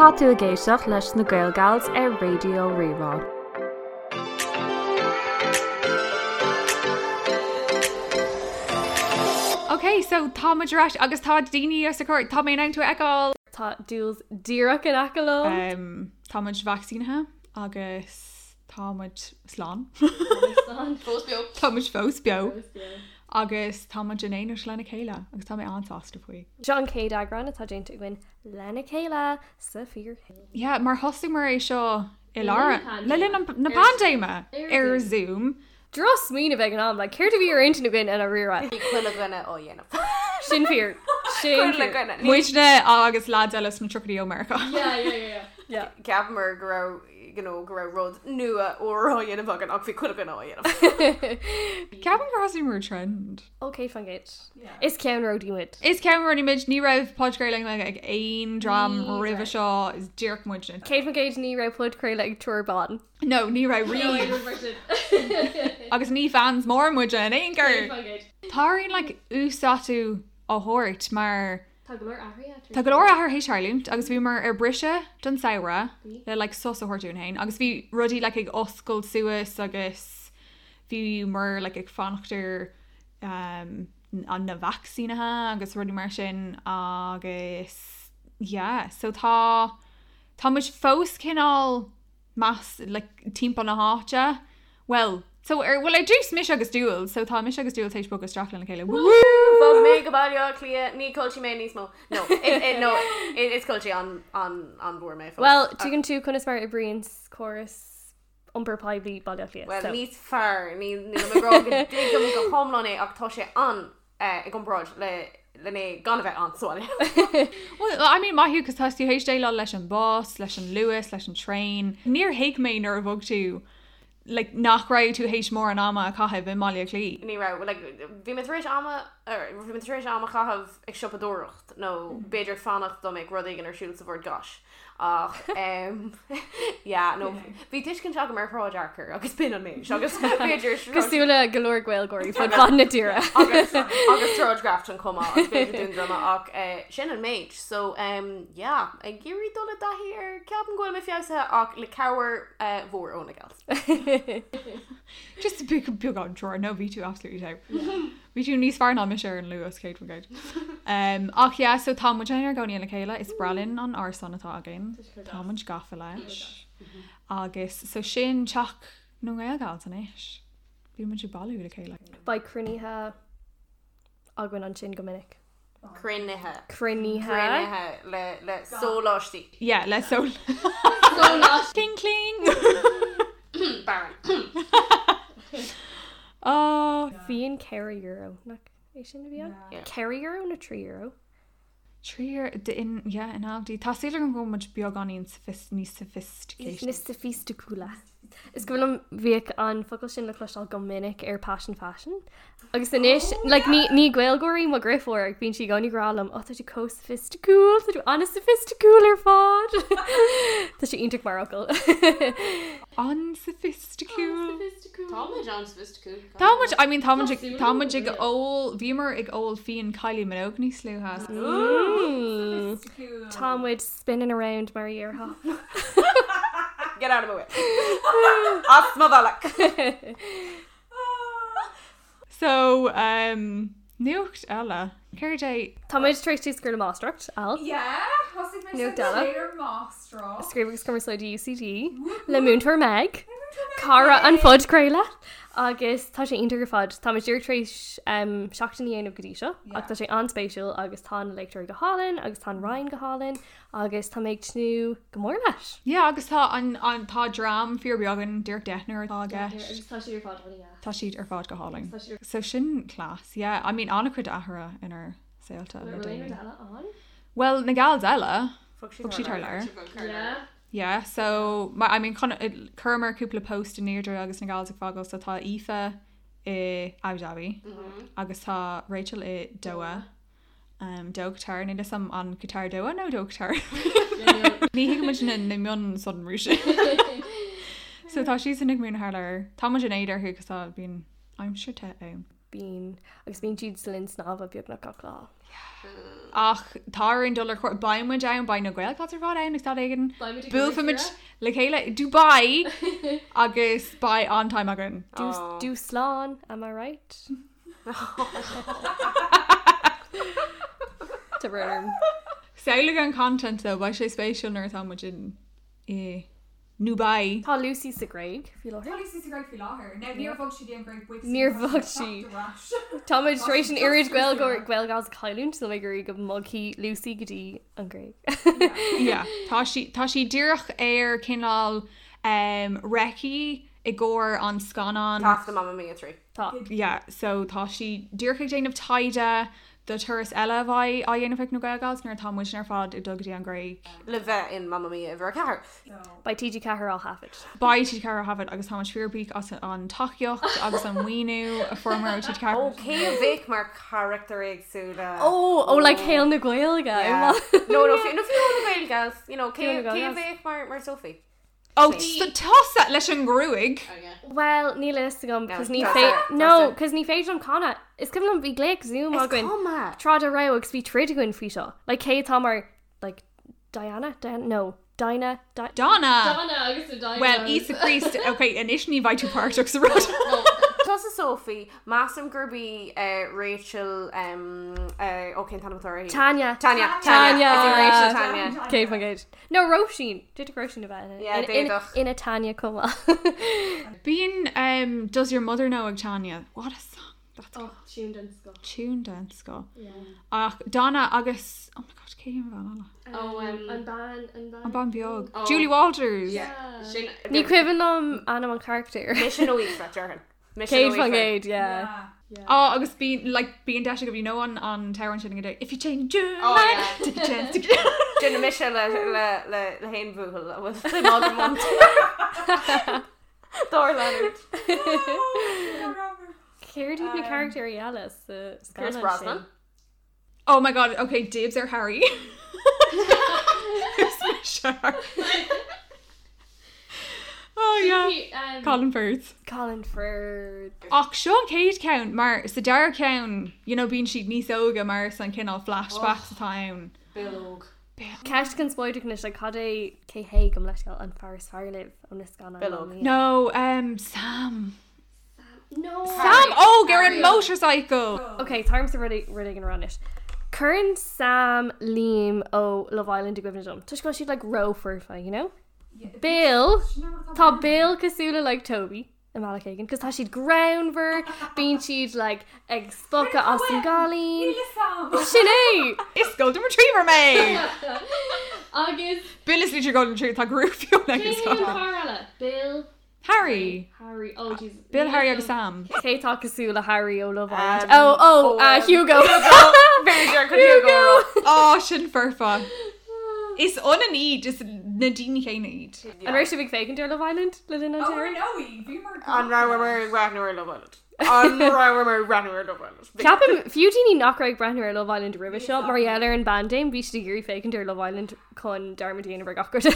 Tá tú ag éisteacht leis na Gaelgals ar Raidió Rí-Rá. Ok, so tá muid ar ais agus tá daoine os ár gcomhair, tá mé in ann tú a fheiceáil! Tá Jules díreach in aice liom. Tá muid vacsaínithe agus tá muid slán. Fós beo. Tá muid fós beo. Agus tá muid in éineacht lena chéile agus tá mé an-sásta faoi. Seo an chéad eagrán atá déanta againn lena chéile sa fíorshaol. Yeah, mar thosaíomar é seo i lár, le linn na paindéime ar Zoom. Drochsmaoineamh ag an am, like, céard a bhí ar intinn againn i ndáiríre? Bhí chuile dhuine á dhéanamh. Sin fíor. Sin Chuile dhuine. Muidne agus lads eile sna tríochaidí ó Meiriceá. Yeah, yeah, yeah, yeah. Cheapamar go raibh, you know, go raibh rud nua úr á dhéanamh againn ach bhí chuile dhuine á dhéanamh. Ceapaim gur thosaíomar trend. Ó 100%. Is ceannródaí muid. Is ceannródaí muid. Ní raibh podchraoladh i nGaeilge ag aon dream roimhe seo. Is díreach muidne. 100% ní raibh podchraoladh ag triúr ban. No, ní raibh riamh. Agus ní fans mór muide in aon chor. Tá orainn like uasdátú a thabhairt mar Tá go leor athruithe Tá go leor athruithe théis tarlúint agus bhíomar ar briseadh don samhradh le like sos a thabhairt dúinn féin agus bhí rudaí like ag oscailt suas agus bhíomar like ag fanacht ar um, an na vacsaínithe agus rudaí mar sin agus yeah so tá tá muid fós cineál meas like timpeall na háite well so ar well ar dtús mise agus Jules so tá mise agus Jules théis bogadh isteach lena chéile Woo! Bhog mé go Baile Átha Cliath, ní culchie mé níos mó. No, it, it, no, it, is culchie an, an, an mhór mé fós. Well, tuigeann tú conas mar oibríonn córas iompar poiblí Baile Átha Cliath. Well, níos fearr, níl mé ag rá go dtuigim go hiomlán é ach tá sé an i gcomparáid le le mé gan a bheith ann sa bhaile. Well, I mean, maith thú, cos tá tú théis déileáil leis an bus, leis an Luas, leis an traein. Níor thuig mé nuair a bhog tú, like, nach raibh tú théis mórán ama a chaitheamh i mBaile Átha Cliath. Ní raibh, like, bhí mé tar éis ama, bhí mé tar éis am a chaitheamh ag siopadóireacht nó b'fhéidir fanacht dá mbeadh rud éigin ar siúl sa Bhord Gáis. Ach yeah, no, bhí tuiscint agam ar Shráid Fhearchair agus b'in an méid agus b'fhéidir Cosúil le go leor Gaeilgeoirí fud fad na tíre. agus agus Sráid Grafton chomh maith agus b'fhéidir Dún Droma ach eh, sin an méid. So um, yeah, ag iarraidh dul i dtaithí air ceapaim go bhfuil mé feabhsaithe ach le cabhair eh, mhór ó na gals. Just beagán treoir, no bhí tú absolutely top. Bhí tú níos fearr ná mise ar an Luas 100%. Um, ach yeah, so tá muid inár gcónaí le chéile, is breá linn an árasán atá againn. Tá muid gafa leis. Agus so sin teach na nGaelgals anois. Bíonn muid ag bailiú le chéile. Beidh cruinnithe againn ansin go minic. Cruinnithe. Cruinnithe. Cruinnithe le, le sóláistí. Yeah, le sól. Sóláistí. Cling cling! Baron. Oh. Fíon €4, nach é sin a bhí ann? €4 nó €3? €3 in, yeah, in Aldi. Tá súil agam go bhfuil muid beagáinín níos sophisticated. Níos soifisticiúla. Is cuimhin liom bhíodh an focal sin le cloisteáil go minic ar Passion Fashion. Agus anois, like, ní, ní Gaeilgeoir í mo dheirfiúr ach bíonn sí i gcónaí ag rá liom, oh, tá tú chomh soifisticiúil, tá tú an-soifisticiúil ar fad. Tá sé iontach mar fhocal. An-soifisticiúil. Tá muid an-soifisticiúil. Tá muid, I mean, tá muid ag, tá muid ag ól, bhíomar ag ól fíon Kylie Minogue níos luaithe. Mm. Tá muid spinning around mar a dhéarfá. Get out of my way. As mo bhealach. So, um, nuacht eile. Céard é? Tá muid tar éis tús a chur le máistreacht, Al. Yeah, thosaigh mé Nuacht sa eile. chéad máistreacht. Scríobh agus Cumarsáid UCD le Múinteoir Meg, cara an phodchraoladh, agus tá sé iontach ar fad. Tá muid díreach tar éis um, seachtain a dhéanamh go dtí seo, ach tá sé an-spéisiúil agus tá na léachtóirí go hálainn agus tá an roinn go hálainn agus tá mé ag tnúth go mór leis. Yeah, agus tá an, an, tá dream fíorbheag againn, díreach deichniúr atá i gceist. Agus tá siad ar fad an-deas. Tá siad ar fad go hálainn. Tá siad. So sin class, yeah. I mean, an-chuid athruithe inár saolta le Bhfuil aon déanaí. rud eile ann? Bhuel, na gals eile, Bhog bhog siad thar lear. Yeah. Yeah, so, ma- I mean, chun, chuireamar cúpla post in airde agus na gals ag fágáil, so tá Aoife i Abu Dhabi agus tá Rachel i Doha. Um, Doha Qatar, níl a fhios agam an Qatar Doha nó Doha Qatar. Ní thuigimid na, na mionsonraí sin. So tá siadsan ag múineadh thar lear. Tá muid in éad orthu cos tá bíonn aimsir te ann. Bíonn, agus bíonn siad sa linn snámha beagnach gach lá. Ach tá orainn dul ar cuairt, beidh muid ann, beidh na Gaelgals ar fad ann ag staid éigin. Buailfimid le chéile i Dubai agus beidh an-time againn. Dúshlán, am I right? Tá brón orm. Samhlaigh an content though, beidh sé spéisiúil nuair atá muid in i nDubai. Tá Lucy sa Ghréig faoi láthair. Tá Lucy sa Ghréig faoi láthair. Now níor bhog sí go dtí an Ghréig buíochas Níor bhog sí. Tá muid tar éis an oiread Gaeilgeoir Gaelgals a chailliúint, níl mé ag iarraidh go mbogfaidh Lucy go dtí an Ghréig. Yeah, tá sí tá sí díreach ar cineál um, recce i gcomhair an scannán. Taifeadadh Mamma Mia 3. Tá. Yeah, so tá sí díreach ag déanamh taighde do turas eile a bheidh á dhéanamh ag na Gaelgals nuair atá muidne ar fad ag dul go dtí an Ghréig. Le bheith in Mamma Mia uimhir 4. Beidh TG4 á thaifead. Beidh TG4 á thaifead agus tá muid fíorbhuíoch as an tacaíocht agus an maoiniú a fuaireamar ó TG4. Ó, cé a bheadh mar charachtair éagsúla? Ó, ó like shaol na Gaeilge. Yeah. No, no, fiú no fiú na Gaelgals, you know, cé cé a bheadh mar mar Sophie? Ó, tusa leis an ngruaig! Bhuel, níl a fhios agam, cos ní fé-, no, cos ní féidir liom canadh. Is cuimhin liom bhí glaoch Zoom againn tráth dá raibh agus bhí troid againn faoi seo. Like, cé atá mar, like, Diana? Diana? No. Dinah? Di- Donna! Donna agus na Diana. Bhuel, Íosa Críost, ok, anois ní bheidh tú páirteach sa rud. Tusa Sophie, measaim gurb í Rachel, ó cén t-ainm atá uirthi? Tanya. Tanya. Tanya. Is í Rachel Tanya. 100%. No, Róisín! D'fhéadfadh Róisín a bheith ina, Yeah, ina, ina, d'fhéadfadh. ina Tanya chomh maith. Bíonn um, Does Your Mother Know ag Tanya. What a song. That's Oh, tune den scoth. tune den scoth. Yeah. Ach Donna agus oh my god, cé an bhean eile? Oh, um, An bean, an bean. An bean beag. Oh. Julie Walters. Yeah. Sin Ní cuimhin liom ainm an charachtair. Mise nó Aoife, déarfainn. Mise nó 100% Aoife. yeah. Oh, agus bíonn like bíonn deis agaibh you know an an t-amhrán sin ag If you change your Oh, mind, yeah. take a chance. Take a Déanfaidh mise le le le le haon bhuachaill a bhfuil suim agam iontu. Dár leanúint. Céard iad na carachtair eile sa Pierce scannán Brosnan. sin? Oh my god, okay, dibs ar Harry. Who's mise Harry? Oh yeah. Colin Firth. Colin Firth. Ach seo an chéad ceann mar sa dara ceann, you know, bíonn siad níos óige mar is an cineál flashbacks atá ann. Bill Óg. Ceist conspóideach anois, like, cad é cé hé gabh mo leithscéal an fear is fearr libh ó na scannáin Bill Óg. Mamma Mia? No, um, Sam. No. Sam Óg ar an motorcycle! Ok, tá ormsa rud rud éigin a rá anois. Cuireann Sam Liam ó Love Island i gcuimhne dom. Toisc go bhfuil siad like ró-foirfe, you know? Bill, tá Bill cosúil le like Toby i mbealach éigin, cos tá siad greannmhar, bíonn siad like ag spochadh as an gcailín. Sin é! Is Golden Retriever mé! Agus Bill is literally Golden Retriever, tá gruaig fionn cé hé an fear eile? Bill, Harry! Harry, oh Jesus. Bill, Harry agus Sam. Cé tá cosúil le Harry ó Love Island? Um, Oh, oh, oh, uh, um, Hugo. B'fhéidir chun Hugo a rá. Ó, sin foirfe. Is ionann iad, is na daoine céanna iad. An raibh sibh ag féachaint ar Love Island le linn an tsamhraidh? An rabhamar ag breathnú ar Love Island? An rabhamar ag breathnú ar Love Island? Ceapaim, fiú daoine nach raibh ag breathnú ar Love Island roimhe seo, mar gheall ar an bpaindéim, bhí siad ag iarraidh féachaint ar Love Island chun dearmad a dhéanamh ar gach rud.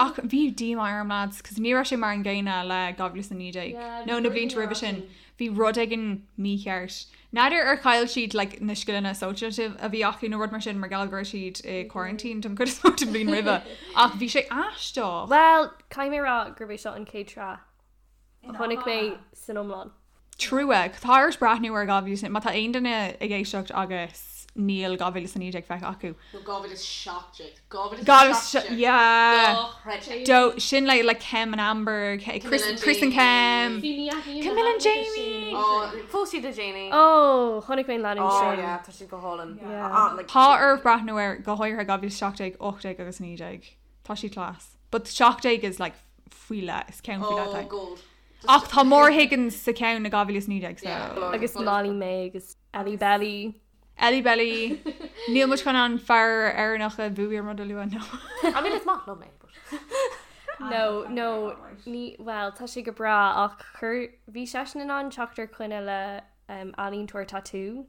Ach bhí díomá orm lads, cos ní raibh sé mar an gcéanna le 2019 nó na blianta roimhe sin. Bhí rud éigin mícheart. N'fheadar ar chaill siad like na scileanna sóisialta a bhí acu nó rud mar sin mar gheall go raibh siad i quarantine don chuid is mó den bhliain roimhe. Ach bhí sé aisteach. Bhuel, caithfidh mé a rá gurb é seo an chéad sraith a chonaic mé san iomlán. Trua. Tá ort breathnú ar 2000, má tá aon duine ag éisteacht agus níl 2019 feicthe acu. Nó 2017. 2017. Yeah. Dochreidte. Do, sin le like Kem and Amber, Chris, Camilla and Chris and Jamie. Kem. Camilla and Jamie. Oh, phós siad le Jamie. Oh, chonaic mé an leanúint Oh sin. yeah, tá siad go hálainn. Yeah. Ah, like, Tá ort breathnú ar go háirithe 2017, 18 agus 19. Tá siad class. But 17 is like faoi leith, is ceann faoi leith Oh, é. gold. Ach tá Maura Higgins sa ceann i 2019 so. Yeah. Agus Molly-Mae agus Ellie Belly. Ellie Belly. Níl muid chun an fear Éireannach a bhuaigh an rud a lua no. I mean, is maith liom é, but. No, no, ní, well, tá sé go breá ach chuir, bhí seisean in ann teacht ar choinne le um, ealaíontóir tatú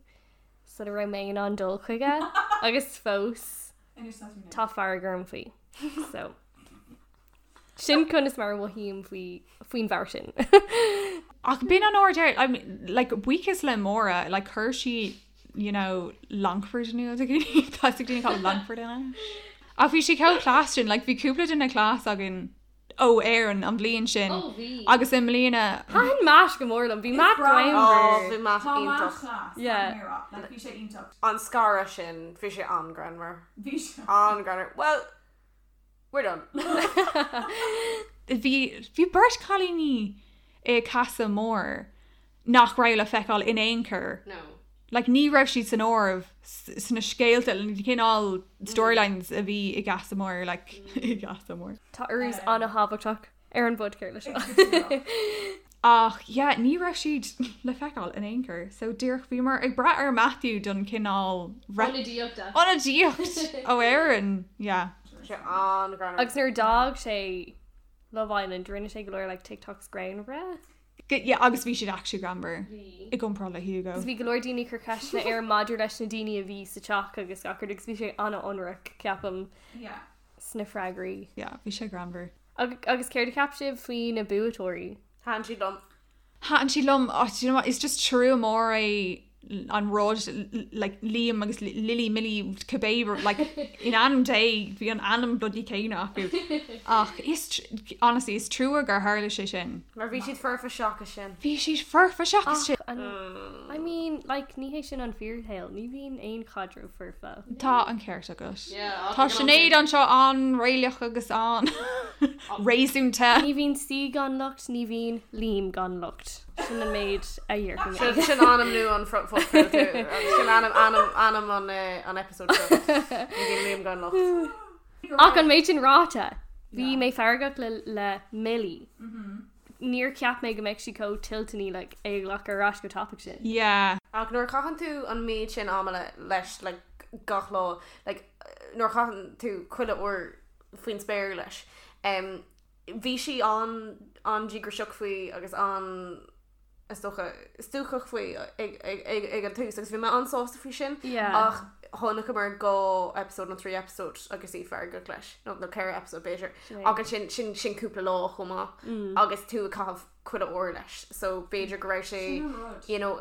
sula raibh mé in ann dul chuige agus fós tá fearg orm faoi. So. Sin conas mar a mhothaím faoi, faoin bhfear sin. Ach b'in an uair deireadh, I mean, like, buíochas le Máire, like, chuir sí, you know, Longford in iúl do dhaoine, tá a fhios ag daoine cá bhfuil Longford anois. Ach bhí sí chomh class sin, like, bhí cúpla duine class againn ó Éirinn an bhliain sin Ó, bhí. agus i mbliana, Thaitin Matt go mór liom, bhí Matt breá. Ó, greannmhar. bhí Matt Tá Matt iontach. class, Yeah. caithfidh mé a rá. Like, bhí sé iontach. An scaradh sin, bhí sé an-ghreannmhar. Bhí sé. An-ghreannmhar. Well, We're done. Bhí bhí beirt cailíní i Casa Amor nach raibh le feiceáil in aon chor. No. Like ní raibh siad san áireamh sna scéalta, na cineál storylines a bhí i gCasa Amor, like i gCasa Amor. Tá urrús an-thábhachtach ar an bpodchraoladh seo. Ach yeah, ní raibh siad le feiceáil in aon chor. So díreach bhíomar ag brath ar Matthew don cineál Ionadaíocht. ionadaíocht ó Éirinn. Yeah. Tá sé an-ghreannmhar. Agus nuair a d'fhág sé Love Island, rinne sé go leor like TikToks greannmhara. Yeah, agus bhí siad actually greannmhar i gcomparáid le Hugo. Agus bhí go leor daoine ag cur ceisteanna air maidir leis na daoine a bhí sa teach agus gach rud agus bhí sé an-ionraic, ceapaim, Yeah. sna freagraí. Yeah, bhí sé greannmhar. Agus céard a cheap sibh faoi na buaiteoirí? Thaitin siad liom. Thaitin siad liom, oh, do you know what, is just trua mór é an rud, like, Liam agus Lily, Millie, cibé, like, in ainm Dé, bhí an ainm bloody céanna acu. Ach is, honestly, is trua gur tharla sé sin. Mar bhí siad foirfe seachas sin. Bhí siad foirfe seachas sin. Ach, an, I mean, like, ní hé sin an fíorshaol, ní bhíonn aon chaidreamh foirfe. Tá an ceart agat. Yeah, Tá Sinéad anseo an-réalaíoch agus an-réasúnta. Ní bhíonn saoi gan locht, ní bhíonn Liam gan locht. Sin an méid a dhéarfaidh mé. Sin ainm nua an phodchraolta. Sin ainm ainm ainm an an episode seo. Ní bhíonn Liam gan locht. Ach an méid sin ráite, bhí mé feargach le le Millie. Níor cheap mé go mbeadh sí chomh toilteanaí like é a ghlacadh ar ais chomh tapaidh sin. Yeah. Ach nuair a chaitheann tú an méid sin ama le leis like gach lá like nuair a chaitheann tú chuile uair faoin spéir leis em bhí sí an an-díograiseach faoi agus an is dócha stuacach faoi ag ag ag ag an tús agus bhí mé an-sásta faoi sin Yeah. ach chonaiceamar 2 episode nó 3 episode agus í feargach leis nó nó 4 episode b'fhéidir Sin é. ach ansin sin sin cúpla lá chomh maith agus tú ag caitheamh chuile uair leis so b'fhéidir go raibh sé Sin an rud. you know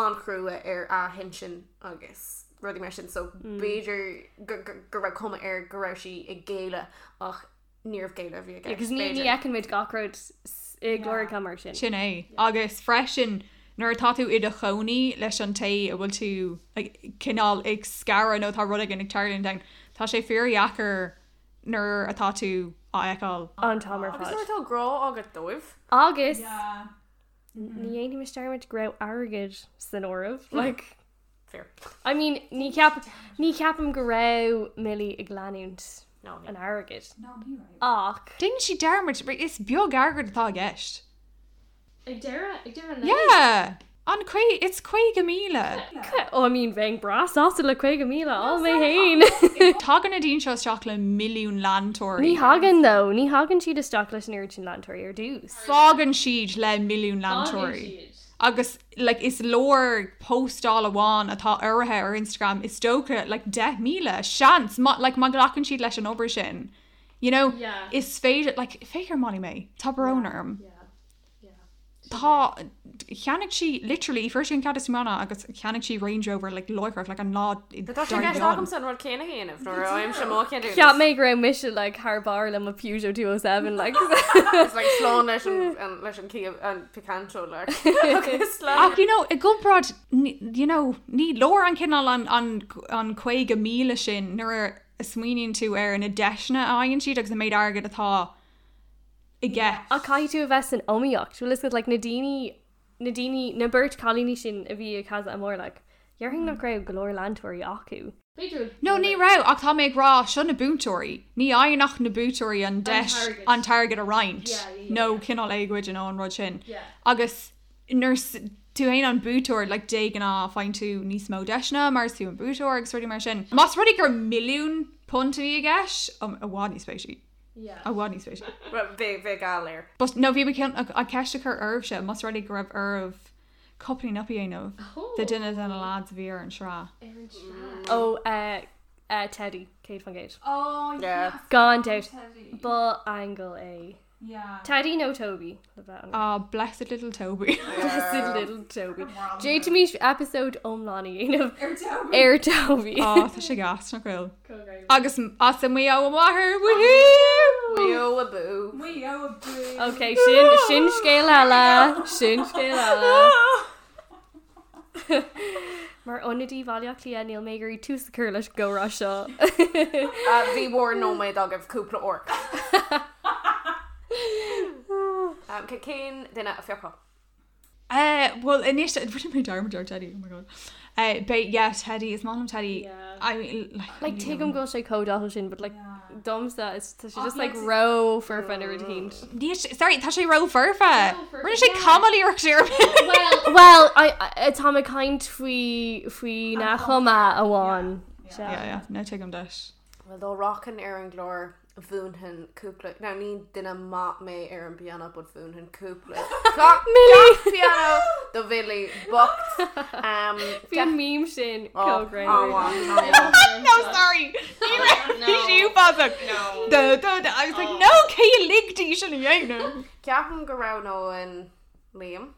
an-chrua ar a hintinn agus rudaí mar sin so b'fhéidir go go go raibh cuma air go raibh sí ag géilleadh ach níorbh géilleadh a bhí i gceist Agus ní ní b'fhéidir. fheiceann muid gach rud i gcláracha mar sin. Sin é. Agus freisin, nuair atá tú i do chónaí leis an té a bhfuil tú like, cineál ag scaradh nó tá rud éigin ag tarlúint ann, tá sé fíordheacair nuair atá tú á fheiceáil. An t-am ar Agus fad. nuair atá grá agat dóibh. Agus Yeah. ní dhéanfaimis dearmad go raibh airgead san áireamh. Like, Fair. I mean, ní cheap ní cheapaim go raibh Millie ag leanúint No, ní. an airgid. No, ní raibh. Ach Déanann sí dearmad, is beag airgead atá i gceist. ag deireadh ag deireadh an Yeah! An caoi, it's 50,000. Oh, I mean, bheinn breá sásta le 50,000 all mé féin. Tagann na daoine seo isteach le milliún leantóirí. Ní thagann though, ní thagann siad isteach leis an oiread sin leantóirí ar dtús. Fágann siad le milliún leantóirí. Agus like is leor postáil amháin atá urraithe ar Instagram is dócha like 10,000 seans má like má ghlacann siad leis an obair sin. You know, Yeah. is féidir like féach ar Molly-Mae, tá brón orm. Yeah. Tá, cheannaigh sí literally, fuair sí an cead tiomána agus cheannaigh sí Range Rover like láithreach like an lá Tá sé i gceist agamsa an rud céanna a dhéanamh nuair a fhaighimse mo cheadúnas. Cheap mé go raibh mise like thar barr le mo Peugeot 207 like. It's like slán leis an leis an Kia an Picanto like. Agus like. Ach you know, i gcomparáid, you know, ní leor an cineál an an an 50,000 sin nuair a smaoiníonn tú ar na deiseanna a fhaigheann siad agus an méid airgid atá i gceist. Ach caithfidh tú a bheith san iomaíocht, bhfuil fhios agat, like na daoine, na daoine, na beirt cailíní sin a bhí i Casa Amor, like, dhéarfainn nach raibh go leor leantóirí acu. B'fhéidir. No, ní raibh, ach tá mé ag rá, seo na buaiteoirí. Ní fhaigheann ach na buaiteoirí an deis an t-airgead a roinnt, nó cineál é a ghoid nó an rud sin. Agus nuair is tú féin an buaiteoir, like, de ghnáth faigheann tú níos mó deiseanna mar is tú an buaiteoir agus rudaí mar sin. Más rud é gur milliún punt a bhí i gceist, i bhfad níos spéisiúla. I bhfad níos spéisiúla. Bhuel, bheadh bheadh geall air. But no, bhí mé chun an ceist a chur oraibhse, más rud é go raibh oraibh coupling up a dhéanamh de duine de na lads a bhí ar an sraith. Ó, eh, eh, Teddy, 100%. Oh, Yeah. Gan dabht. Teddy. Ba aingeal é. Yeah. Teddy nó Toby le bheith ionraic. Ah, blessed little Toby. Blessed little Toby. D'fhéadfaimis episode iomlán a dhéanamh Ar Toby. ar Toby. Á, tá sé gas nach bhfuil. Agus as an Maigh Eo a mháthair, woohoo! Maigh Eo abú. Maigh Eo abú. Ok, sin, sin scéal eile, sin scéal eile. Mar ionadaí Bhaile Átha Cliath níl mé ag iarraidh tús a chur leis an gcomhrá seo. Bhí bhur nóiméad agaibh cúpla uair. Cén duine a phiocfá? Bhuel anois rinne mé dearmad ar Teddy, oh my god. Beidh, yeah, Teddy, is maith liom Teddy. I mean, like, Like tuigim go bhfuil sé chomh dathúil sin but like domsa is tá sé just like ró-fhoirfe nó rud éicint. Níl sé, sorry, tá sé ró-fhoirfe. Rinne sé camaill-iarracht ar Well, well, I, I, tá mé ag caint faoi faoi na chuma amháin. Yeah, yeah, no tuigim duit. Well, dá rachainn ar an gclár mhúinfinn cúpla, now ní duine maith mé ar an bpianó but mhúinfinn cúpla ceacht pianó do Mhilly bocht. Bhí an meme sin chomh greannmhar. No, sorry! Ní raibh bhí sí uafásach. Da, da, da. I was like, no, cé a lig di sin a dhéanamh? Ceapaim go roghnóinn Liam.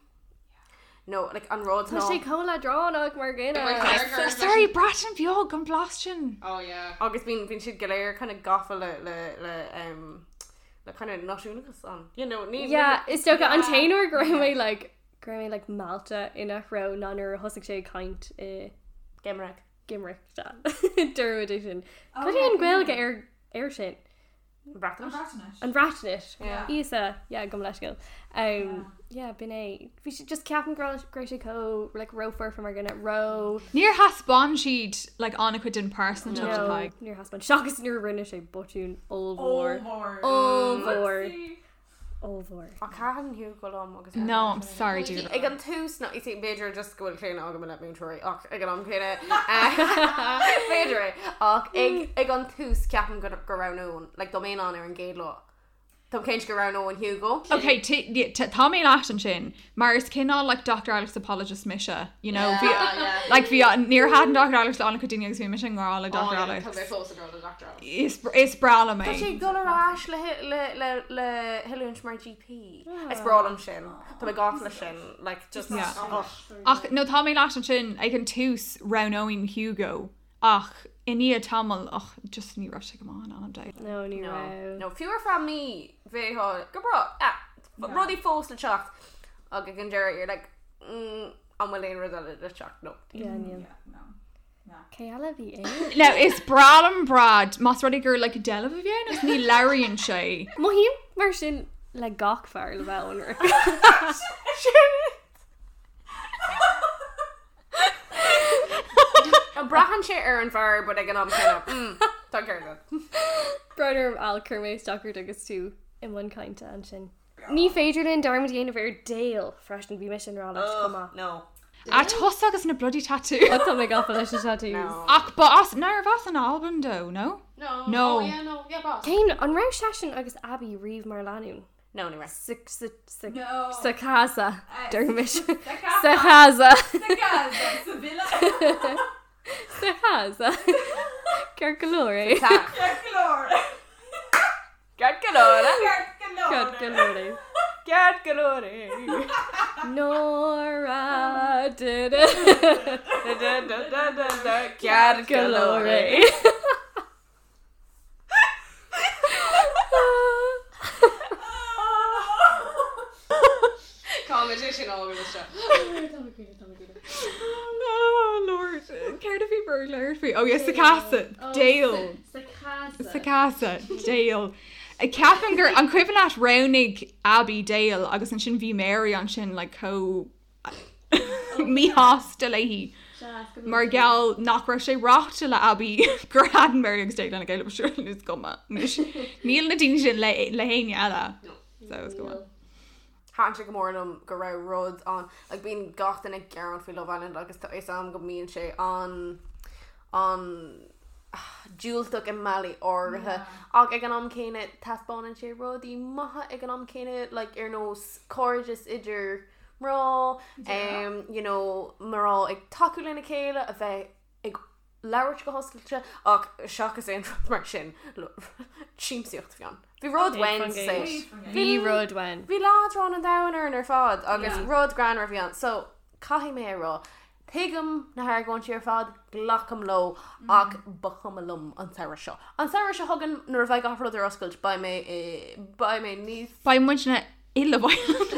No, like an rud Tá sé chomh leadránach mar dhuine. Sorry, Breatain Bheag an blas sin. Oh yeah. Agus bíonn bíonn siad go léir kind of gafa le le le um, le kind of náisiúnachas an. You know, ní Yeah, is dócha an t-aon uair go raibh mé like go raibh mé like meallta ina threo ná nuair a thosaigh sé ag caint i Gymraeg. Gymraeg. Dúirt é sin. Cad é an Ghaeilge ar ar sin? Breatnais. Breatnais. An Bhreatnais. Yeah. Íosa, yeah, gabh mo leithscéal. Um, yeah, b'in é. Bhí sé just ceapaim go raibh go raibh sé chomh like ró-fhoirfe mar dhuine, ró Níor thaispeáin siad like an-chuid den pearsantacht No, atá ag. níor thaispeáin. Seachas nuair a rinne sé botún ollmhór. Ollmhór. Ollmhór. Whoopsie. Ollmhór. Ach thaitin Hugo liom agus No, I'm sorry, dude. Ag an tús no, you see, b'fhéidir just go bhfuil claonadh agam i leith múinteoirí ach ag an am céanna b'fhéidir é ach ag ag an tús ceapaim go go roghnóinn like dá mbeinn ann ar an gcéad lá. Táim cinnte go roghnóinn Hugo. Ok, tá mé leat ansin, mar is cineál like Dr Alex apologist mise, you know, bhí like bhí níor thaitin Dr Alex le an-chuid daoine agus bhí mise i ngrá le Dr Alex. Tá mé fós i ngrá le Dr Alex. Is is breá liom Tá é. sé ag dul ar ais le le le le hoiliúint mar GP. Is breá liom sin. Tá mé gafa leis sin like just Yeah. oh. Ach no tá mé leat ansin ag an tús roghnóinn Hugo ach i ndiaidh tamaill ach just ní raibh sé go maith in anam Dé. No, ní No, raibh. no, fiú ar feadh mí bheifeá go breá. Ah, rudaí fós le teacht ach ag an deireadh you're like mm, an bhfuil aon rud eile le teacht? No. Yeah, níl. Yeah, no. Cé eile a bhí ann? Now is breá liom Brad más rud é gur like deilbh a bhí ann agus ní labhraíonn sé. Mothaím mar sin le gach fear le bheith ionraic. Braitheann sé ar an bhfear but ag an am céanna. Mm, tá ceart agat. Brón orm Al chuir mé isteach ort agus tú i mbun cainte ansin. Ní féidir linn dearmad a dhéanamh ar Dale freisin, bhí mise i ngrá leis chomh maith. No. A tusa agus na bloody tattoos. Ó tá mé gafa leis na tattoos. No. Ach ba as, nárbh as an Albain dó, no? No. No. Oh yeah, no. Yeah, boss. Cén, an raibh seisean agus Abby riamh mar lánúin? No, ní raibh. Sa, sa, sa, No. sa casa, deir mise. Sa Sa casa. casa. Sa casa. Sa villa. Sa casa. Ceart go leor é. Tá. Ceart go leor. Ceart go leor. Ceart go leor. Ceart go leor é. Ceart go leor é. Nora did it. Da, da, da, da, da, da. Ceart go leor é. Cá sé sin á seo. Oh Lord, céard a bhí ag labhairt faoi? Oh yes, sa casa, Dale. Sa casa, Dale. Ceapaim gur an cuimhin leat roghnaigh Abby Dale agus ansin bhí Mary ansin like chomh míshásta léi mar gheall nach raibh sé ráite le Abby gur thaitin Mary agus Dale lena chéile sure is cuma. Níl na daoine sin le le héinne eile. So is cuma. Thaitin sé go mór liom go raibh rud ann like bíonn gach duine ag gearán faoi Love Island agus tá fhios agam go mbíonn sé an an diúltach i mbealaí áirithe ach ag an am céanna taispeánann sé rudaí maithe ag an am céanna like ar nós cairdeas idir mná um, you know, mná ag tacú lena chéile a bheith ag labhairt go hoscailte ach seachas aon rud mar sin, siamsaíocht a bhí ann. Bhí rud uainn sa saol. Bhí rud uainn. Bhí leadrán an domhain orainn ar fad agus rud greannmhar a bhí ann. So, caithfidh mé a rá, tuigim na hargóintí ar fad, glacaim leo ach ba chuma liom an samhradh seo. An samhradh seo chugainn nuair a bheidh gach rud ar oscailt beidh mé i, beidh mé níos. Beidh muidne i Love Island.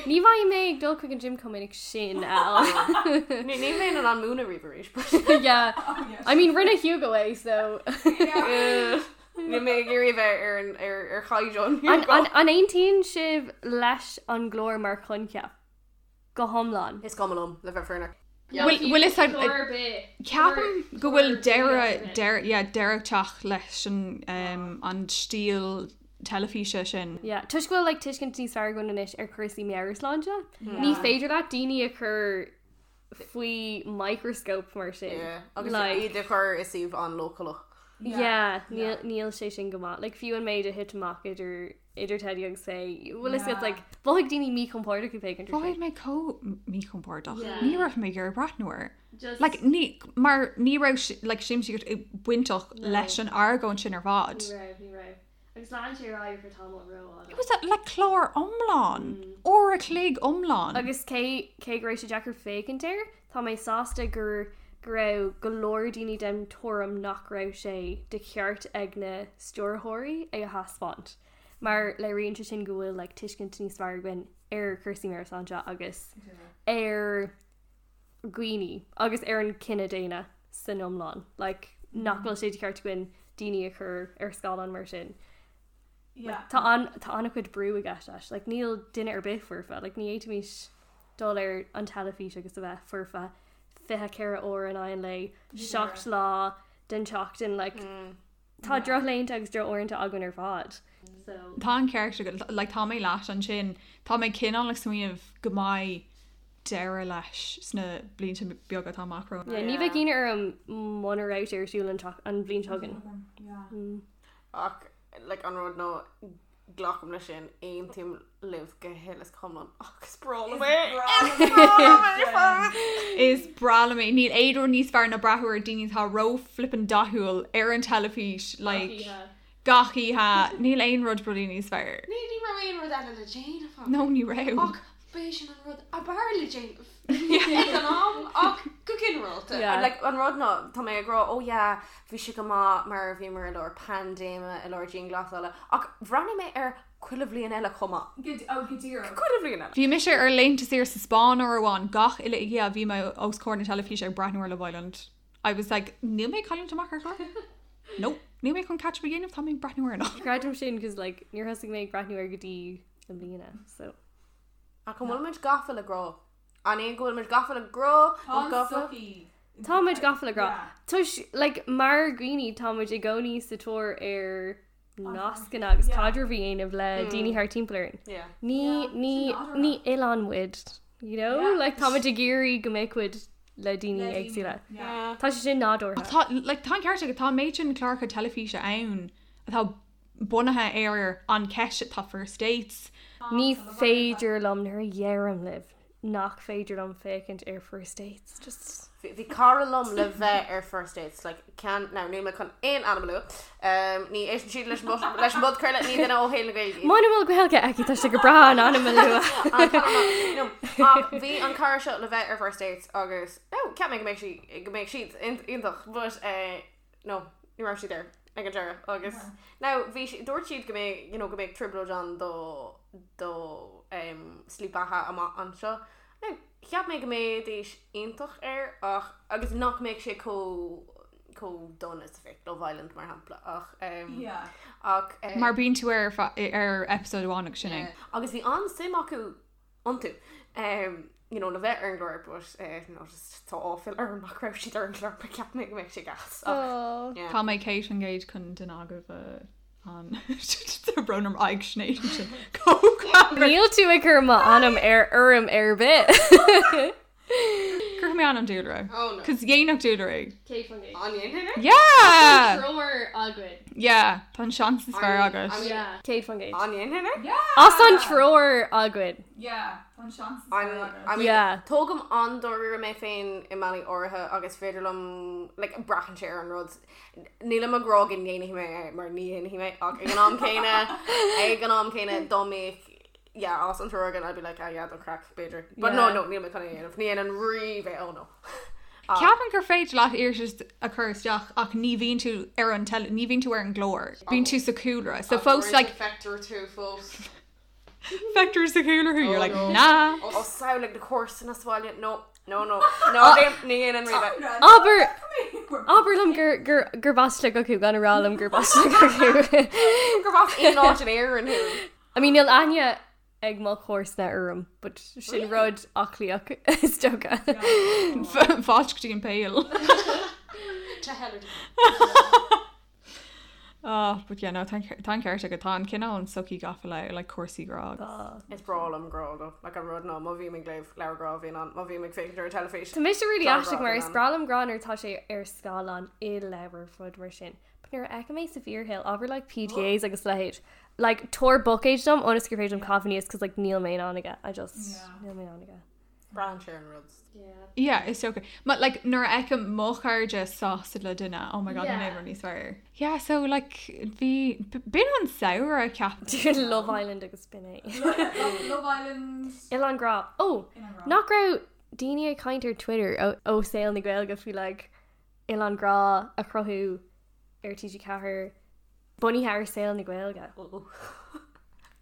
Ní bheidh mé ag dul chuig an gym chomh minic sin, Al. Ní bheinn in ann múineadh riamh arís. Yeah. I mean, rinne Hugo é, so. Níl mé ag iarraidh a bheith ar an ar ar chaighdeán Hugo. An aontaíonn sibh leis an gclár mar choincheap? Go hiomlán. Is cuma liom, le bheith fírinneach. Bhfuil fhios a'd, ceapaim go bhfuil deireadh, deireadh, yeah, deireadh ag teacht leis an, an stíl teilifíse sin. Yeah, toisc go bhfuil like tuiscint níos fearr againn anois ar chúrsaí meabhairshláinte, ní féidir leat daoine a chur faoi microscope mar sin. Yeah, agus iad a chur i suíomh an-leochaileach. Yeah, níl, níl sé sin go maith. Like fiú an méid a thit amach idir idir Teddy agus Faye, bhfuil fhios agat like mhothaigh daoine míchompordach ag féachaint air Mhothaigh sin. mé chomh míchompordach. Yeah. Ní raibh mé ag iarraidh breathnú air. Just Like ní, mar ní raibh si- like siamsaíocht bainteach No. leis an argóint sin ar fad. Ní raibh, ní raibh. Agus lean sé ar aghaidh for tamall rófhada. It was a, like clár iomlán, uair a chloig iomlán. Agus cé cé go raibh sé deacair féachaint air, tá mé sásta gur go raibh go leor daoine den tuairim nach raibh sé de cheart ag na stiúrthóirí é a thaispeáint. Mar léiríonn sé sin go bhfuil like tuiscint níos fearr againn ar chúrsaí meabhairshláinte agus ar dhaoine agus ar an cine daonna san iomlán. Like, nach bhfuil sé de cheart againn daoine a chur ar scáileán mar sin. Yeah. Tá an tá an-chuid brú i gceist leis. Like, níl duine ar bith foirfe. Like, ní fhéadfaimis dul ar an teilifís agus a bheith foirfe 24 uair in aghaidh an lae, 7 lá den tseachtain. Like, tá drochlaethanta agus drochuaireanta againn ar fad. So. Tá an ceart agat, like, tá mé leat ansin. Tá mé cineál ag smaoineamh go mbeidh deireadh leis sna blianta beaga atá amach romhainn. Yeah, ní bheadh ionadh orm muna raibh sé ar siúl an an bhliain seo chugainn. Ach like, an rud ná glacaim leis sin, aontaím libh go huile is go hiomlán ach is breá liom é! Is breá liom é fós! Is breá liom é. Níl aon rud níos fearr ná breathnú ar daoine atá ró-flippin dathúil ar an teilifís like gach oíche. Níl aon rud bloody níos fearr. Ní ní raibh aon rud eile le déanamh acu. No, ní raibh. Ach b'é sin an rud ab fhearr le déanamh ag an am ach go ginearálta. Yeah. Like, an rud ná, tá mé ag rá, oh yeah, bhí sé go maith mar bhíomar i lár paindéime, i lár dianghlasála, ach bhreathnaigh mé air chuile bhliain eile chomh maith. Go, oh, go díreach. Chuile bhliain eile. Bhí mise ar laethanta saoire sa Spáinn uair amháin, gach uile oíche bhí mé os comhair na teilifíse ag breathnú ar Love Island. I was like, níl mé ag cailliúint amach ar chlár. Nope, níl mé chun catch up a dhéanamh, tá mé ag breathnú air anocht. Creidim sin cos like níor thosaigh mé ag breathnú air go dtí i mbliana so. Ach an bhfuil muid gafa le grá? An é go bhfuil muid gafa le grá Tá nó gafa? sochaí. Tá muid gafa le grá. Yeah. Toisc like mar dhaoine tá muid i gcónaí sa tóir ar nascanna agus Yeah. caidreamh a dhéanamh le daoine thart timpeall orainn. Yeah. Ní Yeah, ní sin nádúrtha. ní oileán muid, you know? Yeah. Like tá muid ag iarraidh go mbeadh muid le daoine Le daoine. éagsúla. Yeah. Tá sé sin nádúrtha. Tá, like, tá an ceart agat, tá an méid sin cláracha teilifíse ann atá bunaithe ar an cheist atá First Dates. Ní féidir liom nuair a dheirim libh nach féidir liom féachaint ar First Dates. Just Bhí cara liom le bheith ar First Dates, like, cean, now níl mé chun aon ainm a lua, ní éisteann siad leis an leis an bpodchraoladh, ní duine ó shaol na Gaeilge iad. Muna bhfuil Gaeilge aici tá sé go breá an ainm a lua. An cara maith. No, ach bhí an cara seo le bheith ar First Dates agus, no, cheap mé go mbeadh sí, go mbeadh siad iontach, but eh, no, ní raibh siad air ag an deireadh agus now bhí si- dúirt siad go mbeadh, you know, go mbeadh trioblóid ann do do em, slí beatha amach anseo. Now, cheap mé go mbeidís iontach air ach agus nach mbeadh sé chomh chomh dona is a bheadh Love Island mar shampla ach em, Yeah. ach eh, Mar bíonn tú ar ar episode amháin agus sin é. agus bhí an-suim acu iontu you know le bheith ar an gclár but eh no just tá áiféala orm nach raibh siad ar an gclár but cheap mé go mbeadh sé gas ach yeah. Tá mé 100% chun duine agaibh a an Tá brón orm aghaidh Sinéad ansin. Chomh greannmhar. Níl tú ag cur m'ainm ar fhoirm ar bith. Cuirfidh mé ainm Dúlra. Oh no. Cos dhéanfadh Dúlra é. 100%. An ndéanfainn é? Yeah! Treoir againn. Yeah, tá an seans is fearr agat. Yeah. 100%. An ndéanfainn é? Yeah! As an treoir againn. Yeah. Tá an seans is fearr agat. I mean, Yeah. tógaim an-dáiríre mé féin i mbealaí áirithe agus féidir liom, like, braitheann sé ar an rud. Nílim ag rá go ndéanfaidh mé é mar ní dhéanfaidh mé ach ag an am céanna, ag an am céanna dá mbeadh, yeah, as an triúr againn I'd be like, ah yeah, don chraic, b'fhéidir. But no, Yeah. no, níl mé chun é a dhéanamh. Ní dhéanfainn riamh é, oh no. Ceapaim gur féidir leat iarratas a chur isteach ach ní bhíonn tú ar an teil-, ní bhíonn tú ar an gclár. Bíonn tú sa chúlra. So fós like Feictear tú fós. Feictear sa chúlra thú, you're like, nah. Ó samhlaigh na comharsana sa bhaile, no, no, no, no, ní dhéanfainn riamh é. Abair, abair liom gur, gur, gurb as Sligeach thú, gan a rá liom gurb as Sligeach thú. Gurb as aon áit in Éirinn thú. I mean, níl aithne ag mo chomharsana orm, but sin rud aclaíoch is dócha. Fáilte go dtí an Pale. To hell or to Oh, but yeah, no, tá an ceart agat, tá an cineál an sochaí gafa le like cúrsaí grá agus. Is breá liom grá though, like an rud ná má bhím ag léamh leabhar grá bhíonn ann, má bhím ag féachaint ar an teilifís. Tá mise really Tá grá aisteach mar bhíonn is ann. breá liom grá nuair atá sé ar scáileán i leabhar rud mar sin. But nuair a fheicim é sa bhfíorshaol, ábhar like PDAs agus a leithéid, like tabhair buicéid dom ionas gur féidir liom caitheamh aníos cos like níl mé in ann aige, I just, níl mé in ann aige. Braitheann sé ar an rud. Yeah, is dócha. But like nuair a fheicim mo chairde sásta le duine, oh my god, níl aon rud níos fearr. Yeah, so like bhí, b'in an samhradh ceapaim. Love Island agus b'in é. Love Island. Oileán Grá. Oh, Oileán Grá. nach raibh daoine ag caint ar Twitter ó, ó saol na Gaeilge faoi like Oileán Grá a chruthú ar TG4 bunaithe ar saol na Gaeilge.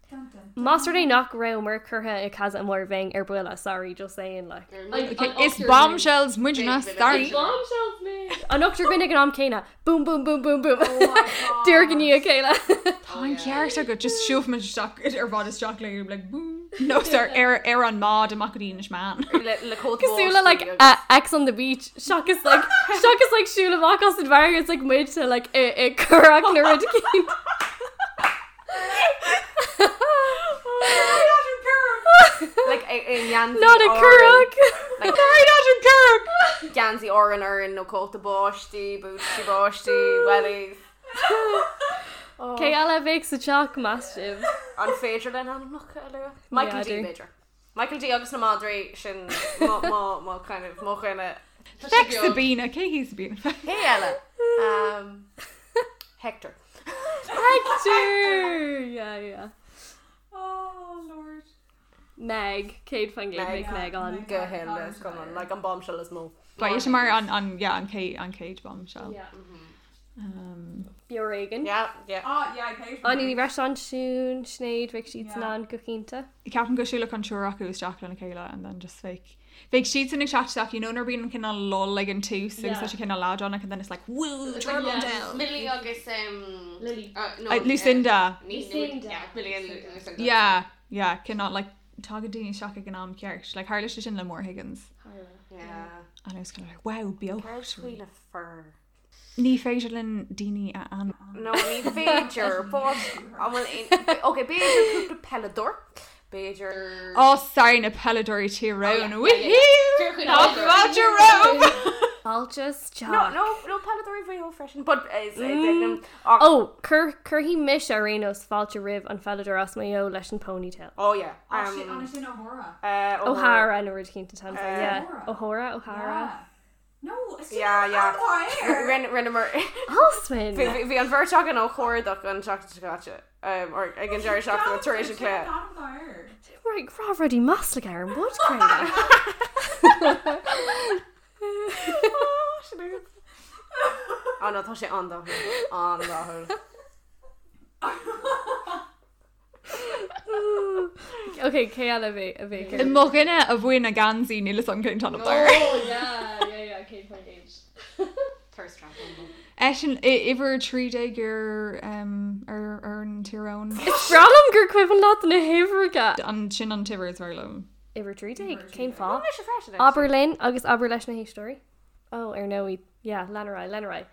Dun, dun, dun. Más rud é nach rabhamar curtha i casa amháin bheinn ar buile, sorry, just saying like. Okay, is bombshells muidne, sorry. Bombshells mé! An ochtar againn ag an am céanna, boom boom boom boom boom. Oh my God. Díreach i ndiaidh a chéile. Tá an ceart agat, just siúlfaimid isteach ar bhád isteach le like boom. No, sir, ar ar an mbád amach go dtí Inis Meáin. Le, le cóta Cosúil le like Ex on the beach seachas like seachas like siúl amach as an bhfarraige it's like muid sa like i i curach nó rud eicínt. Like i i ngeansaí Not a Árann. curach! Like Sorry, not a curach! geansaí Árann orainn nó cóta báistí, bútaí báistí, wellies. Cé eile a bheadh sa teach meas sibh? An féidir linn ainmneacha a lua? Michael D N'fheadar. b'fhéidir. Michael D agus na madraí sin mo mo mo kind of mo dhuine. Feic Sabina, cé hí Sabina? Cé eile? Um, Hector. Hector! Yeah, yeah. Oh Lord. Meg, 100% Meg. Meg Meg ann. Go huile is go hiomlán, like an bombshell is mó. Ba é mar an an yeah, an chéad an chéad bombshell. Yeah. Um, Beo Ar Éigean. Yeah, yeah. Ah, yeah, Kate. Áine Ní Bhreisain, Siún, Sinéad, bheadh siadsan Yeah. ann go cinnte. Ceapaim go siúlfadh an triúr acu isteach lena chéile and then just like bheadh siadsan ag teacht isteach, you know, nuair a bhíonn an cineál lull ag an tús agus tá sé cineál leadránach and then it's like woo, turbo down. Millie agus um, Lily. no, Lucinda. Lucinda. Yeah, Millie and Lucinda. Yeah, yeah, cineál like tagann daoine isteach ag an am ceart. Like tharla sé sin le Maura Higgins. Yeah. And I was kind of like, wow, beo. Céard faoi na fir? Ní féidir linn daoine a ainm. No, ní féidir, but an bhfuil aon Ok, b'fhéidir cúpla peileadóir. B'fhéidir Oh, sorry, na peileadóirí Tyrone. Oh, yeah, yeah, yeah. Woohoo! Tá fáilte romhaibh! Fáilte isteach. No, no, no peileadóirí Mhaigh Eo freisin, but is mm. ach, Oh, cuir cuirfidh mise ar aon nós fáilte roimh an pheileadóir as Maigh Eo leis an ponytail. Oh yeah. Oh shit, an sin O'Hora. O'Hara nó rud eicínt atá ann, yeah. O'Hora. O'Hora, O'Hara. Yeah. No, it's Yeah, yeah. yeah. Rinneamar Alswyn! Bhí bhí an bheirt againn á chuardach an tseachtain seo caite, um, or ag an deireadh seachtaine tar éis an chluiche. Right, rá rudaí maslach ar an bpodchraoladh. Oh no, tá sé an-dathúil, an-dathúil. Ok, cé eile a bheidh a bheidh ar? Mo dhuine a bhain a geansaí níl fhios agam cén t-ainm air. Oh yeah, yeah, yeah, 100%. Thirst trap. Eisean uimhir 13 ar ar ar an Tyrone. Is breá liom gur cuimhin leat na huimhreacha. An sin an t-uimhir is fearr liom. Uimhir 13, cén fáth? Mise freisin, actually. Abair linn agus abair leis na héisteoirí. Oh, ar ndóigh, yeah, lean ar aghaidh, lean ar aghaidh.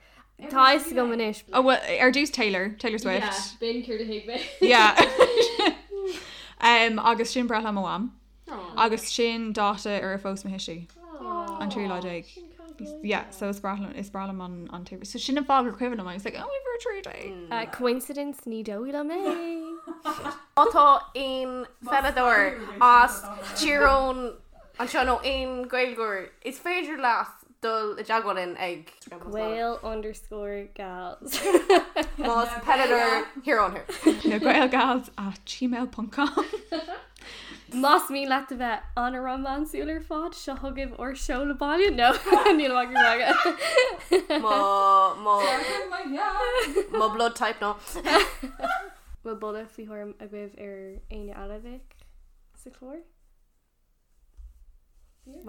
Tá fhios agam anois. Oh well, ar dtús Taylor, Taylor Swift. b'in céard a thuig mé. Yeah. um, agus sin breithlá mo mham. Agus sin dáta ar a phós mo thuistí. An 13 lá. Yeah, so is breá liom is breá liom an an t-uimhir. So sin an fáth gur cuimhin liom. I was like, oh, uimhir 13. Coincidence ní dóigh liom é. Má tá aon pheileadóir as Tír Eoghain anseo nó aon Ghaeilgeoir, is féidir leat dul i dteagmháil linn ag. Gael underscore gals. Más peileadóir Thír Eoghain thú. Na Gaelgals at gmail ponc com. Más mian leat a bheith an-rómánsúil ar fad, seo chugaibh ár seoladh baile, no, níl ach ag magadh. Mo, mo, mo blood type ná. Bhfuil boladh faoi thuairim agaibh ar éinne eile a bheadh sa chlár?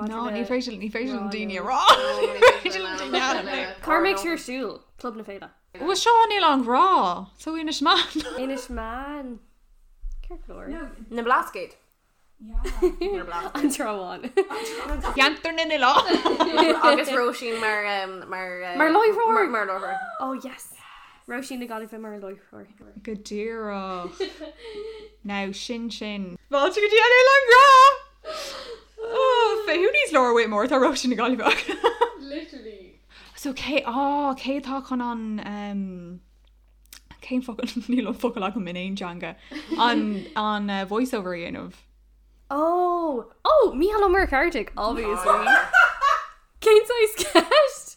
No, ní féidir ní féidir liom daoine a rá. Ní féidir liom daoine a ainmniú. Cá mbeidh sé ar siúl? Club na Féile. Bhuel seo níl an rá, so Inis Meáin. Inis Meáin. Ceart go leor. Na Blascaod. Na Blascaod. An Trá Bháin. Ceantar na nOileán. Agus Róisín mar mar Mar láithreoir! Mar láithreoir. Oh yes! Róisín na Gaillimhe mar láithreoir. Go díreach. Now sin sin. Fáilte go dtí an Oileán Grá! Oh, who needs Laura Whitmore tá Róisín na Gaillimhe acu. Literally. So cé á cé atá chun an um, cén focal níl an focal agam in aon teanga an an uh, voiceover a dhéanamh. Oh! Oh! Mícheál Ó Muircheartaigh, obviously. Cén saghas ceist?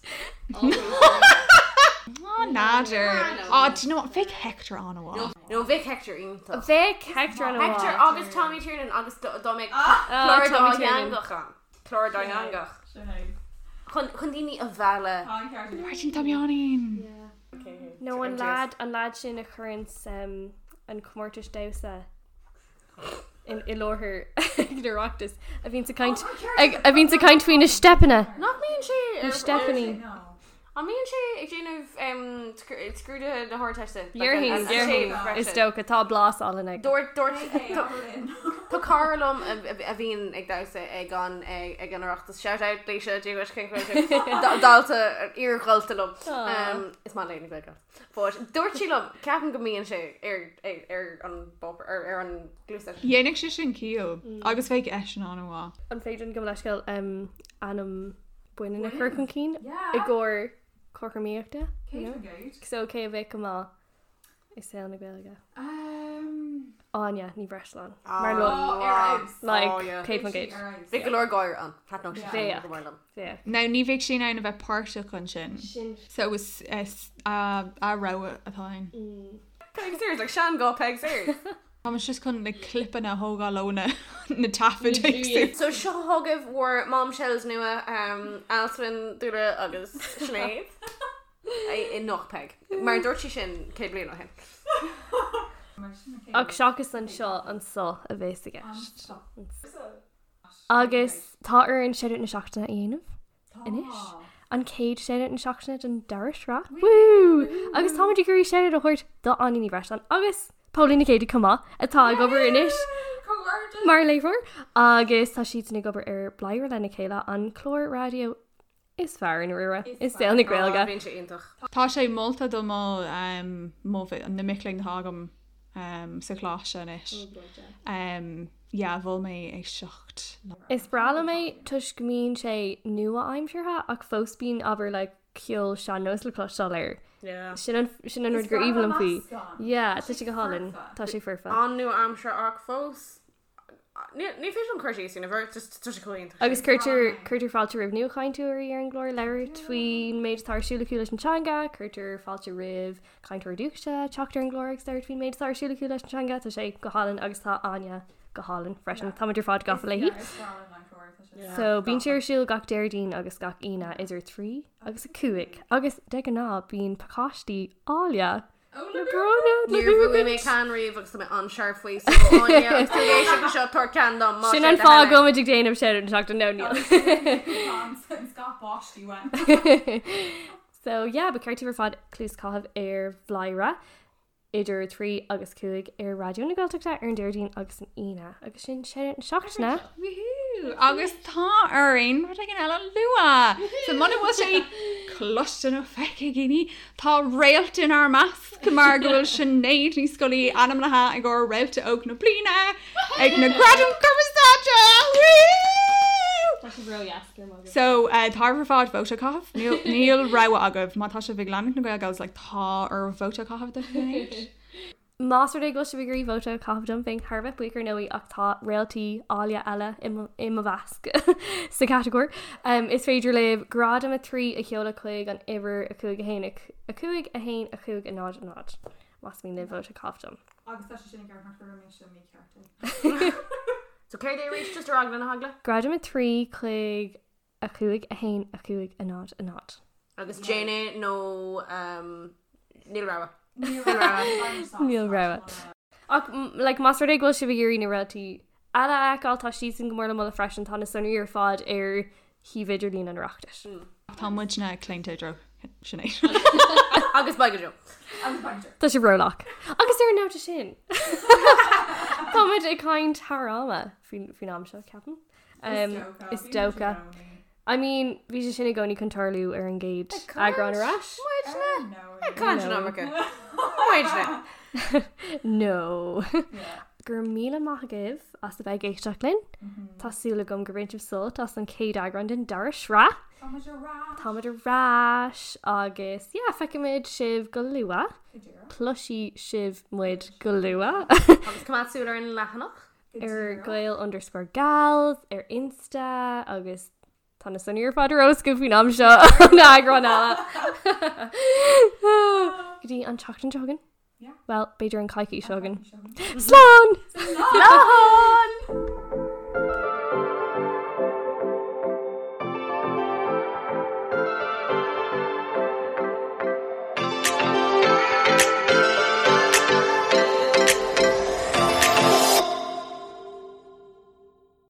Á n'fheadar. Á do you know what bheadh Hector an-mhaith. No bheadh Hector iontach. Bheadh Hector an-mhaith. Hector agus Tommy Tiernan agus dá mbeadh clár Tommy Tiernan. dátheangach ann. Clár dátheangach. Chun chun daoine a mhealladh. Máirtín Tom Sheáinín. No an lad an lad sin a chuireanns um, an comórtas damhsa i láthair ag an Oireachtas a bhíonns ag caint a bhíonns ag caint faoi na steipeanna. Nach mbíonn sé Na steipeanna. An mbíonn sé ag déanamh scrúduithe na hArdteiste? Déarfainn, déarfainn, is dócha, tá blas álainn aige. Dúirt, dúirt, tá cara liom a bhíonn ag damhsa ag an ag an Oireachtas. Shout out Lisa, Dia duit, cén chaoi a bhfuil tú? Dalta, iar-dhalta liom. Is maith léi na Gaeilge. But dúirt sí liom, ceapaim go mbíonn sé ar ar an bpáipéar, ar ar an gcluasteist. Dhéanfadh sé sin ciall agus bheadh eisean an-mhaith. An féidir linn gabh mo leithscéal ainm baineann a chur chun cinn i gcomhair cothromaíochta? You know? So cé a bheadh go maith i saol na Gaeilge? Áine Ní Bhreisleáin. Mar lo like 100%. Bheadh go leor gáire ann. Thaitneodh sé sin go mór liom. Bheadh. Now ní bheadh sí in ann a bheith páirteach ansin. Sin. So is a rogha atá ann. Peig Sayers, like sean-ghuth Peig Sayers. Tá muid just chun na clipeanna a thógáil ó na na taifid éagsúla. So seo chugaibh bhur bombshells nua, Alswyn, Dúla agus Sinéad. I nach Peig. Mar dúirt sí sin 100 bliain ó shin. Ach seachas anseo, anso a bheas i gceist. Agus tá orainn Shoutout na Seachtaine a dhéanamh anois. An chéad Shoutout na Seachtaine den dara sraith. Woo! Agus táimid ag iarraidh shoutout a thabhairt do Áine Ní Bhreisleáin agus Póilín Nic Géidigh chomh maith atá ag obair anois mar léitheoir agus tá siadsan ag obair ar Bladhaire lena chéile, an clár raidió is fearr i ndáiríre i saol na Gaeilge. Bíonn sé iontach. Tá sé molta do mo, mo, na mic léinn atá agam sa choláiste anois. Yeah, mhol mé é 7 lá. Is breá liom é toisc go mbíonn sé nua-aimseartha ach fós bíonn abair like ceol sean-nós le cloisteáil air. Yeah. Sin an, sin an rud gur aoibhinn liom faoi. Yeah, tá sé go hálainn. Tá sé foirfe. An-nua-aimseartha ach fós Ní féidir liom cur síos air, just tá sé chomh iontach. Agus cuirtear cuirtear fáilte roimh nuachainteoirí ar an gclár labhairt faoin méid atá ar siúl acu leis an teanga, cuirtear fáilte roimh cainteoirí dúchais teacht ar an gclár agus labhairt faoin méid atá ar siúl acu leis an teanga, tá sé go hálainn agus tá Áine go hálainn freisin. Táimid ar fad gafa léi. So bíonn sé ar siúl gach Déardaoin agus gach Aoine idir 3 agus 5 agus de ghnáth bíonn pacáistí áille Le bronnadh le Níor bhuaigh mé buachaint. ceann riamh agus tá mé an-searbh faoi so Áine agus tú ag éisteacht leis seo tabhair ceann dom más Sin é an do fáth thoil go é. bhfuilimid ag déanamh shoutout na seachtaine no níl. Scaip báistí uaim. So yeah, ba cheart daoibh ar fad cluas a chaitheamh ar Bhladhaire idir 3 agus 5 ar Raidió na Gaeltachta ar an Déardaoin agus an Aoine agus sin shoutout na seachtaine. Woohoo! Agus tá orainn rud éigin eile a lua! So muna bhfuil sé cloiste nó feicthe ag daoine, Tá réalt inár measc mar go bhfuil Sinéad Ní Scolaí ainmnithe i gcomhair Réalta Óg na Bliana ag na Gradaim Cumarsáide! Woo! Tá sibh ró-dheas, go raibh maith agat. So, tá oraibh ar fad vóta a chaitheamh. Níl, níl rogha agaibh. Má tá sibh ag leanúint na Gael Gals, like, tá oraibh vóta a chaitheamh do Shinéad. Más rud é go bhfuil sibh ag iarraidh vóta a chaitheamh dom, bheinn thar a bheith buíoch ar ndóigh ach tá réaltaí áille eile i mo mheasc sa chatagóir. Is féidir libh gradam 3 a sheoladh chuig an uimhir 5 1 5 1 5 0 0 más mian libh vóta a chaitheamh dom. Agus tá sé sin i gceart nach raibh mise mícheart. So céard é arís just ar eagla na heagla? Gradam 3 chuig 5 1 5 0 0. Agus déan é nó níl rogha. Níl rogha. Ach like, más rud é go bhfuil sibh ag iarraidh na réaltaí eile a fheiceáil, tá siadsan go mór le moladh freisin, tá na sonraí ar fad ar shuíomh idirlín an Oireachtais. Tá muidne claonta i dtreo Sinéad. Agus beidh go deo. Agus beidh go deo. Tá sibh rólach. Agus ar an nóta sin, tá muid ag caint thar ama faoin am seo, ceapaim. Is dócha. I mean, bhí sé sin i gcónaí chun tarlú ar an gcéad eagrán ar ais. Muidne? Ag caint an iomarca. Muidne. No. Go raibh míle maith agaibh as a bheith ag éisteacht linn. Tá súil agam gur bhain sibh sult as an chéad eagrán den dara sraith. Táimid ar ais. Táimid ar ais agus yeah, feicfimid sibh go luath. Cloisfidh sibh muid go luath. Agus coimeád súil ar an leathanach. ar Gael underscore gals ar Insta agus tá na sonraí ar fad ar eolas agaibh faoin am seo an eagrán eile. Go dtí an tseachtain seo chugainn? Well, b'fhéidir an coicís seo chugainn. Slán! Slán!